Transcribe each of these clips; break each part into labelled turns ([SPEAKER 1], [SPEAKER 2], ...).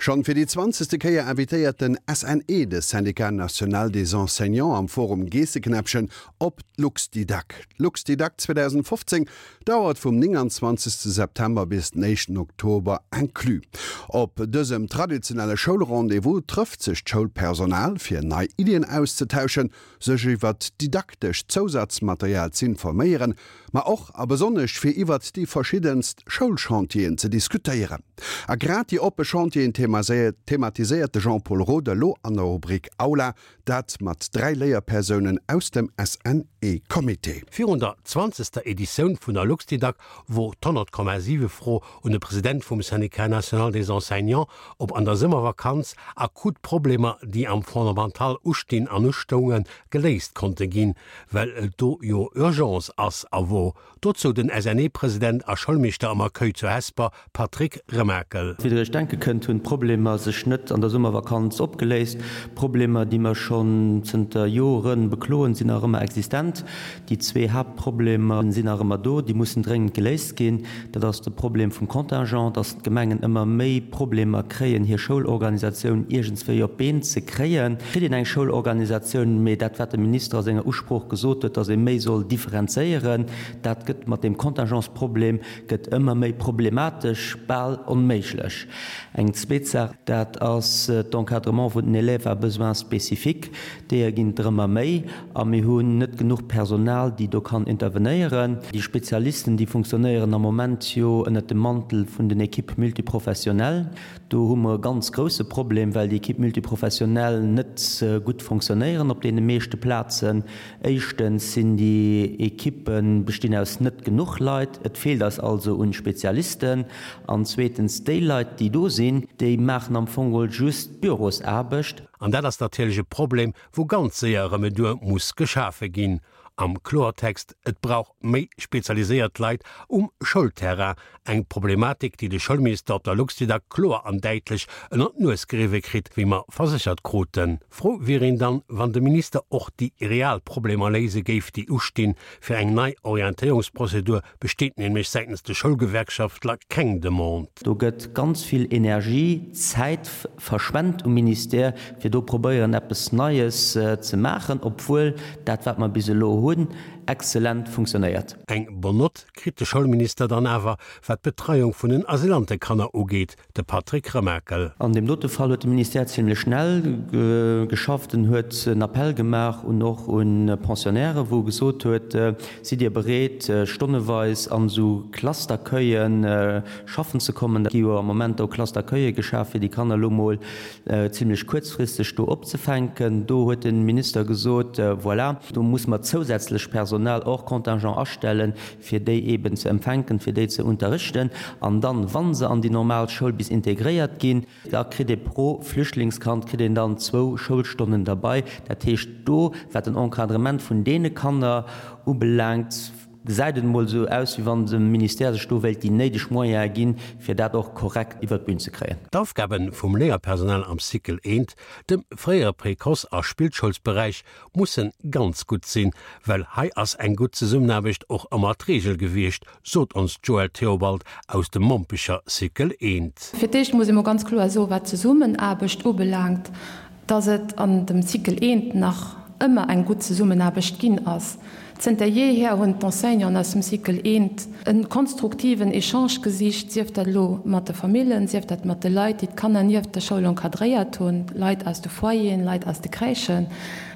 [SPEAKER 1] Schonn fir déi zwanzegste Kéier invitéiert den SNE, de Syndicat National des Enseignants, am Forum Geesseknäppchen op d'LuxDidac. D'LuxDidac 2015 dauert vum 29 September bis den éischten Oktober inclus. Op dësem traditionelle Schoulrendez-vous trëfft sech d'Schoulpersonal, fir nei Iddien auszetauschen, sech iwwert didaktescht Zousatzmaterial z'informéieren, ma och a besonnesch fir iwwert déi verschiddenst Schoulchantieren ze diskutéieren. A grad déi oppe Chantieren thematiséiert de Jean-Paul Roth elo an der Rubrik Aula, dat mat 3 Léierpersounen aus dem SNE-Comité.
[SPEAKER 2] Virun der zwanzegster Editioun vun der Luxdidac wor d'100,7 Fro un de President vum Syndicat national des enseignants, ob an der Summervakanz akut Problemer, déi am Fondamental ustinn an ustoungen, geléist konnte ginn, well et do jo Urgence ass a wor. Dozou den SNE-President a Schoulmeeschter am Accueil zu Hesper, Patrick Remakel.
[SPEAKER 3] Wéi der iech denke kënnt, hunn d'Problemer sech net an der Summervakanz opgeléist. Problemer, déi mer schonn zënter Jore bekloen, sinn nach ëmmer existent. Déi zwee Haaptproblemer sinn nach ëmmer do, déi mussen dréngend geléist ginn. Dat ass de Problem vum Contingent, dass d'Gemengen ëmmer méi Problemer kréien, hir Schoulorganisatioun iergendswéi op d'Been ze kréien. Et kritt een eng Schoulorganisatioun, mee dat, wat de Minister a senger Usprooch gesot huet, dass ee méi soll differenzéieren, dat gëtt mat deem Contingentsproblem gëtt ëmmer méi problematesch, bal onméiglech. Eng zweet Saach, dat ass d'Encadrement vun den Élèves à besoins spécifiques. Deeër ginn et der ëmmer méi a mir hunn net genuch Personal, déi do kann intervenéieren. Déi Spezialisten, déi funktionéieren am Moment jo ënnert dem Mantel vun den Équipes multiprofessionnelles. Do hu mer e ganz grousse Problem, well déi Équipes multiprofessionnelles net gutt fonctionnéieren op deene meeschte Plazen. Éischtens sinn déi Equippe bestinn aus net genuch Leit, et feelt eis also un Spezialisten. An zweetens, déi Leit, déi do sinn, déi maachen am Fong geholl just Bürosaarbecht.
[SPEAKER 2] An dat ass natierlech e Problem, wou ganz séier Remedur muss geschafe ginn. Am Kloertext, Et brauch méi spezialiséiert Leit um Schoulterrain, eng Problematik, déi de Schoulminister op der Luxdidac kloer an däitlech ënner d'Nues geriwwe kritt, wéi mer verséchert kruten. Frou wier een dann, wann de Minister och déi real Problemer léise géif, déi ustinn. Fir eng nei Orientéierungsprozedur besteet nämlech säitens de Schoulgewerkschaftler keng Demande.
[SPEAKER 3] Do gëtt ganz vill Energie, Zäit verschwent um Ministère, fir do probéieren eppes Neies ze maachen, obwuel dat wat mer bis elo hunn, exzellent funktionéiert.
[SPEAKER 2] Eng bonne Note kritt de Schoulminister dann awer, wat d'Betreiung vun den Asylantekanner ugeet. De Patrick Remakel.
[SPEAKER 3] An deem dote Fall huet de Ministère zimlech schnell geschafft. En huet en Appell gemaach un och un Pensionnaires, wou e gesot huet, Sidd Dir bereet, stonneweis an esou Classe-d'accueillen schaffen ze kommen? Et gi jo am Moment do Classe-d'accueille geschaf, fir déi Kanner elo mol zimlech kuerzfristeg do opzefänken. Do huet de Minister gesot, Voilà, do muss mer zousätzlech Personal hors contingent astellen, fir déi eeben ze empfänken, fir déi ze unterrichten, an dann, wa se an déi normal Schoul bis integréiert ginn, da kritt ee pro Flüchtlingskand kritt een dann zwou Schoulstonnen derbei. Dat heescht, do, wat den Encadrement vun deene Kanner ubelaangt, gesäit et emol esou aus, wéi wann de Ministère sech do wéilt déi néideg Moyene ginn, fir dat och korrekt iwwert d'Bün ze kréien.
[SPEAKER 2] D'Aufgabe vum Léierpersonal am Cycle I, dem fréiere Précoce a Spillschoulsberäich, mussen ganz gutt sinn, well hei ass eng gutt Zesummenaarbecht och ëmmer d'Reegel gewiescht, sot ons d'Joëlle Theobald aus dem Mompecher Cycle I.
[SPEAKER 4] Fir d'éischt muss ee mol ganz kloer soen, wat d'Zesummenaarbecht ubelaangt, dass et an dem Cycle I nach ëmmer eng gutt Zesummenaarbecht ginn ass. Zënter jeehier hunn d'Enseignanten aus dem Cycle I e konstruktiven Echange gesicht, sief dat elo mat de Famillen, sief dat mat de Leit, déi d'Kanner nieft der Schoul encadréiert hunn, Leit aus de Foyeren, Leit aus de Crèchen.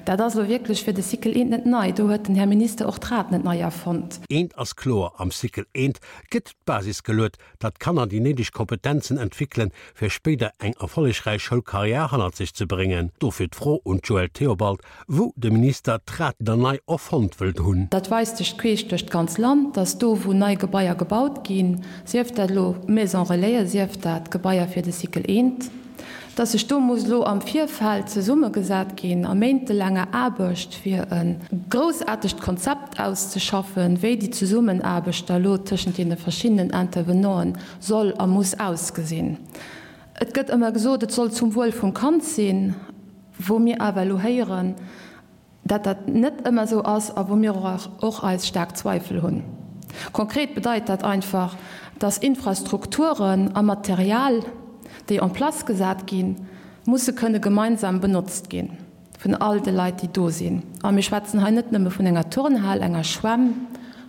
[SPEAKER 4] Dat ass elo wierklech fir de Cycle I net nei. Do huet den Här Minister och d'Rad net nei erfonnt.
[SPEAKER 2] Eent ass kloer, Am Cycle I gëtt d'Basis geluet, datt d'Kanner déi néideg Kompetenzen entwéckelen, fir spéider eng erfollegräich Schoulkarriär hannert sech ze bréngen. Dofir d'Fro un d'Joëlle Theobald, wou de Minister d'Rad dann nei erfonnt wëllt hunn.
[SPEAKER 4] Dat weist sech queesch duerch d'ganz Land, datt do, wou nei Gebaier gebaut ginn, sief dat elo Maison Relaisen, sief dat Gebaier fir de Cycle I, datt sech do muss elo am Virfeld zesummegesat ginn a méintelaanger Aarbecht, fir e groussaartegt Konzept auszeschaffen, wéi déi Zesummenaarbecht da elo tëschent deene verschiddenen Intervenanten soll a muss ausgesinn. Et gëtt ëmmer gesot, et soll zum Wuel vum Kand sinn, wou mir awer elo héieren, dat dat net ëmmer esou ass a wou mir och eis staark Zweifel hunn. Konkret bedeit dat einfach, dass Infrastrukturen a Material. déi en place gesat ginn, musse kënne gemeinsam benotzt gi vun all de Leit, déi do sinn. A mir schwätzen hei net nëmme vun enger Turnhal, enger Schwämm,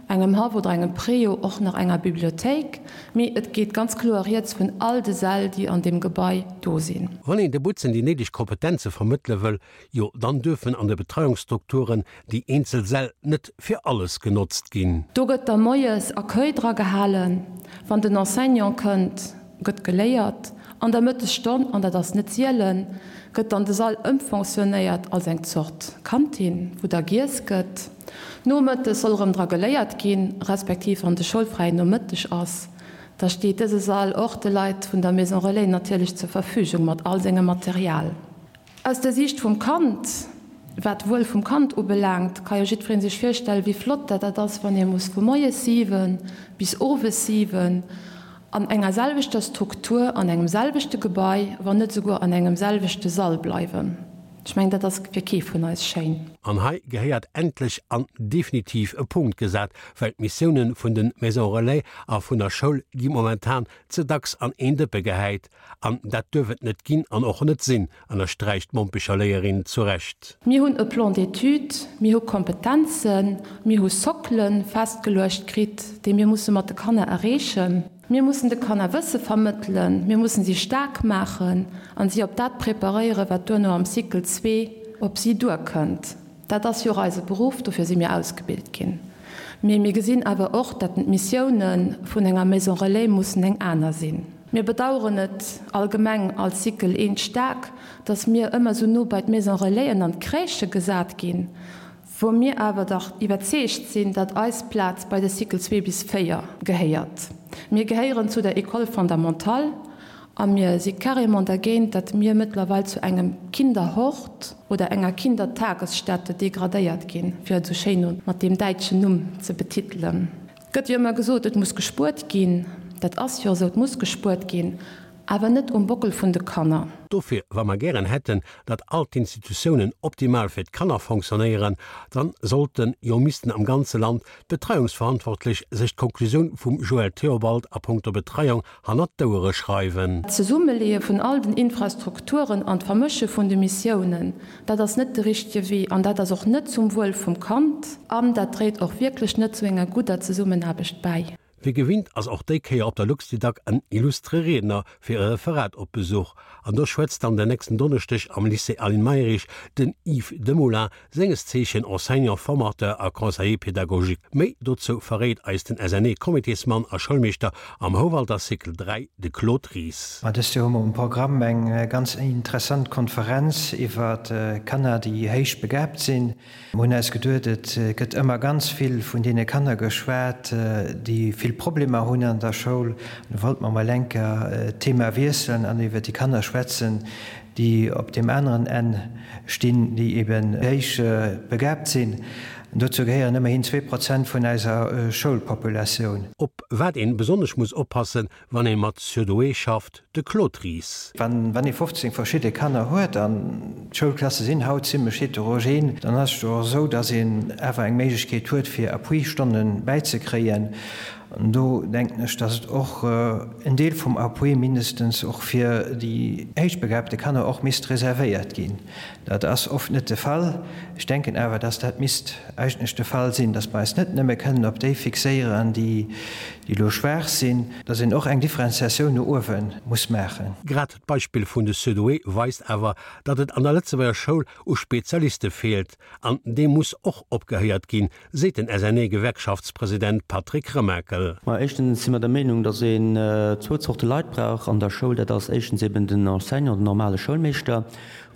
[SPEAKER 4] engem Haff oder engem Préau, och nach enger Bibliothéik, mee et geet ganz kloer rieds vun all de Säll, déi an deem Gebai do sinn.
[SPEAKER 2] Wann een de Butzen déi néideg Kompetenze vermëttele wëll, jo dann duerfen an de Betreiungsstrukturen déi eenzel Säll net fir alles genotzt ginn.
[SPEAKER 4] Do gëtt da moies Accueil dra gehalen, wann den Enseignant kënnt, gëtt geléiert. An der Mëttesstonn, an dat ass net sielen, gëtt dann de Sall ëmfonctionnéiert als eng Zort Kantin, wou da giess gëtt. Nomëttes soll erëm dra geléiert ginn, respektiv wann de schoulfräien Nomëtteg ass, da steet dëse Sall och de Leit vun der Maison Relais natierlech zur Verfügung mat all sengem Material. Aus der Siicht vum Kand, wat d'Wuel vum Kand ubelaangt, ka jo jiddweree sech virstellen, wéi flott dat dat ass, wann ee muss vu moies 7 bis owes 7 an enger selwechter Struktur, an engem selwechte Gebai, wann net esouguer an engem selwechte Sall bleiwen. Ech mengen, dat ass fir kee vun eis schéin.
[SPEAKER 2] An hei gehéiert endlech an definitiv e Punkt gesat, well d'Missiounen vun de Maisons Relais a vun der Schoul gi momentan ze dacks an een Dëppe gehäit. An dat duerf et net ginn an och net sinn, ënnersträicht d'Mompecher Léierin zu Recht.
[SPEAKER 4] Mir hunn e Plan d'études, mir hu Kompetenzen, mir hu Sockele festgeluecht kritt, déi mir musse mat de Kanner erreechen. Mir mussen de Kanner Wësse vermëttelen, mir mussen si staark maachen an si op dat preparéieren, wat duerno am Cycle zwee op si duerkënnt. Dat ass jo och eise Beruff, dofir si mir ausgebilt ginn. Mee mir gesinn awer och, datt d'Missioune vun enger Maison Relais mussen eng aner sinn. Mir bedauern et allgemeng als Cycle I staark, datt mir ëmmer esou no bei d'Maison Relaisen an d'Crèchë gesat ginn, wou mir awer dach iwwerzeegt sinn, datt eis Plaz bei de Cycle 2 bis 4 gehéiert. Mir gehéieren zu der École fondamentale a mir si carrément dergéint, datt mir mëttlerweil zu engem Kinderhort oder enger Kindertagesstätte degradéiert ginn, fir et esou schéin mat deem däitschen Numm ze betitelen. Et gëtt jo ëmmer gesot, et muss gespuert ginn. Dat ass jo esou, et muss gespuert ginn, awer net um Bockel vun de Kanner.
[SPEAKER 2] Dofir, wa mer gären hätten, datt all d'Institutiounen optimal fir d'Kanner fonctionnéieren, dann sollten, jo missten am ganze Land d'Betreiungsverantwortlech sech d'Konklusioun vum Joël Theobald a punkto Betreiung hannert d'Ouere schreiwen.
[SPEAKER 4] D'Zesummeleeë vun all den Infrastrukturen an d'Vermësche vun de Missiounen, dat ass net de richtege Wee an dat ass och net zum Wuel vum Kand an dat dréit och wierklech net zu enger gudder Zesummenaarbecht bäi.
[SPEAKER 2] Wéi gewinnt ass och déi Kéier op der Luxdidac en illustre Riedner fir e Referat op Besuch. An do schwätzt dann den nächsten Donneschdeg am Lycée Aline Mayrisch den Yves Demoulin, senges Zeechen Enseignant formateur a Conseiller pédagogique. Méi dozou verréit eis den SNE-Comitésmann a Schoulmeeschter am Houwalder Cycle 3, de Claude Ries.
[SPEAKER 5] Ma dëst Joer hu mer um Programm eng ganz interessant Konferenz iwwer Kanner, déi héich begaabt sinn. Mer hunn eis geduet, et gëtt ëmmer ganz vill vun deene Kanner geschwat, déi vill Problemer hunn an der Schoul. An du wollte mer mol enker d'Thema wiesselen an iwwer déi Kanner schwätzen, déi op deem aneren Enn stinn, déi eben héich begaabt sinn. An dozou gehéieren ëmmerhin 2% vun eiser Schoulpopulatioun.
[SPEAKER 2] Op wat een besonnesch muss oppassen, wann een mat Surdoué schafft, de Claude Ries.
[SPEAKER 5] Wann ee 15 verschidde Kanner huet, an d'Schoulklasse sinn haut zimlech heterogen, dann ass et jo och esou, dass een awer eng Méiglechkeet huet, fir Appui-Stonne bäizekréien. An do denken ech, dass et och en Deel vum Appui mindestens och fir déi héichbegabte Kanner och misst reservéiert ginn. Dat ass oft net de Fall. Ech denken awer, dass dat misst eigentlech de Fall sinn, dass mer eis net nëmme kënnen op déi fixéieren, déi elo schwaach sinn, dass een och eng Differenziatioun no uewe muss maachen.
[SPEAKER 2] Grad d'Beispill vun de Surdoué weist awer, datt et an der Lëtzebuerger Schoul u Spezialiste feelt. An deem muss och opgehéiert ginn, seet den SNE-Gewerkschaftspresident Patrick Remakel.
[SPEAKER 3] Ma éischtens si mer der Meenung, datt een zwou Zorte Leit brauch an der Schoul. Dat ass éischtens eben den Enseignant, den normale Schoulmeeschter,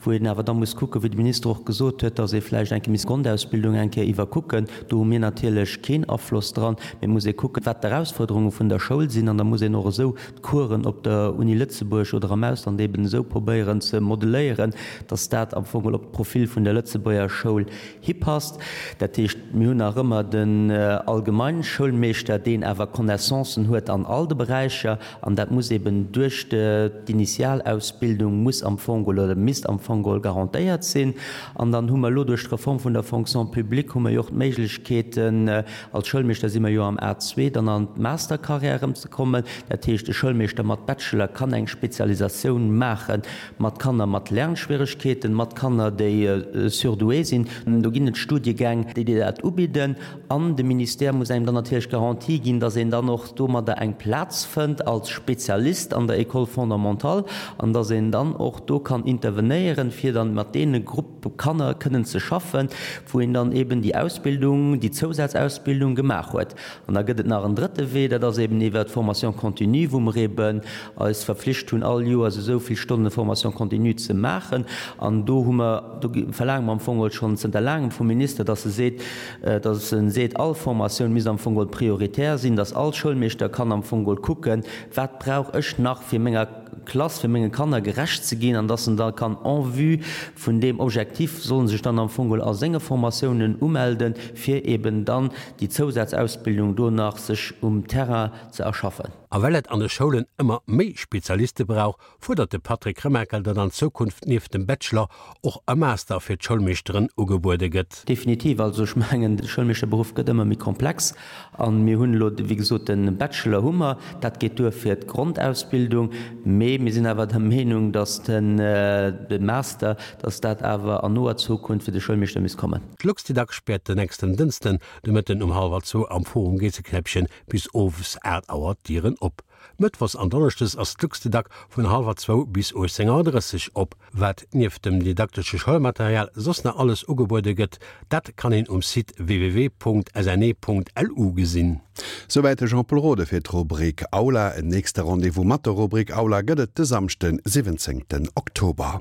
[SPEAKER 3] wou een awer da muss kucken, wéi de Minister och gesot huet, datt ee vläicht eng Kéier misst d'Grondausbildung eng Kéier iwwerkucken. Do hu mir natierlech keen Afloss dran, mee et muss ee kucken, wat d'Erausfuerderunge vun der Schoul sinn an da muss een och esou d'Coursen op der Uni Lëtzebuerg oder am Ausland eben esou probéieren ze modeléieren, datt dat am Fong op d'Profil vun der Lëtzebuerger Schoul hipasst. Dat heescht, mir hunn nach ëmmer den Allgemeinschoulmeeschter, deen awer Connaissancen huet an all de Beräicher, an dat muss eben duerch d'Initialausbildung muss am Fong oder misst am. Fong geholl garantéiert sinn. An dann hu mer elo duerch d'Reform vun der Fonction publique hu mer jo och d'Méiglechkeeten, als Schoulmeeschter si mer jo am A2, dann an d'Mastercarrière erëmzekommen. Dat heescht, e Schoulmeeschter mat Bachelor kann eng Spezialisatioun maache mat Kanner mat Lernschwieregkeeten, mat Kanner, déi surdoué sinn. Do ginn et Studiegäng, déi dir dat ubidden. An de Ministère muss engem dann natierlech d'Garantie ginn, dass een dann och domadder eng Plaz fënnt als Spezialist an der École fondamentale an dass een dann och do kann intervenéieren, fir dann mat deene Gruppe Kanner kënnen ze schaffen, wou een dann eben déi Ausbildung, déi Zousazausbildung gemaach huet. An da gëtt et nach en drëtte Wee, dat ass eben iwwert d'Formation continue, wou mer eben eis verpflicht hunn, all Joers esou vill Stonne Formation continue ze maachen. An do hu mer, do verlaange mer am Fong geholl schonn zënter laangem vum Minister, dass e seet, dass e seet, all Formatioun misst am Fong geholl prioritär sinn, dass all Schoulmeeschter kann am Fong geholl kucken, wat brauch ech nach, fir menger Klass, fir menge Kanner gerecht ze ginn, an dass en da kann en vue vun deem Objectif, soll en sech dann am Fong geholl a senge Formatiounen umelden, fir eben dann déi Zousazausbildung do nach sech um Terrain ze erschaffen.
[SPEAKER 2] A well et an de Schoulen ëmmer méi Spezialiste brauch, fuerdert de Patrick Remakel, datt an Zukunft nieft dem Bachelor och e Master fir d'Schoulmeeschteren ugebuede gëtt.
[SPEAKER 3] Definitiv. Also ech mengen, de Schoulmeeschterberuff gëtt ëmmer méi komplex a mir hunn elo, wéi gesot, de Bachelor hu mer, dat geet duer fir d'Grondausbildung, mee mir sinn awer der Meenung, datt de Master, datt dat awer an noer Zukunft fir de Schoulmeeschter misst kommen.
[SPEAKER 2] D'Luxdidac späert den nächsten Dënschden de Mëtten um hallwer zwou am Forum Geesseknäppchen bis owes 8 Auer d'Dieren op. Mëttwochs an Donneschdes ass d'Luxdidac vun hallwer zwou bis 18 Auer 30 op. Wat nieft dem didaktesche Schoulmaterial soss nach alles ugebuede gëtt, dat kann een um Site www.sne.lu gesinn.
[SPEAKER 1] Souwäit de Jean-Pol Rode fir d'Rubrik Aula. En nächste Rendez-vous mat der Rubrik Aula gëtt et de Samschden, 17 Oktober.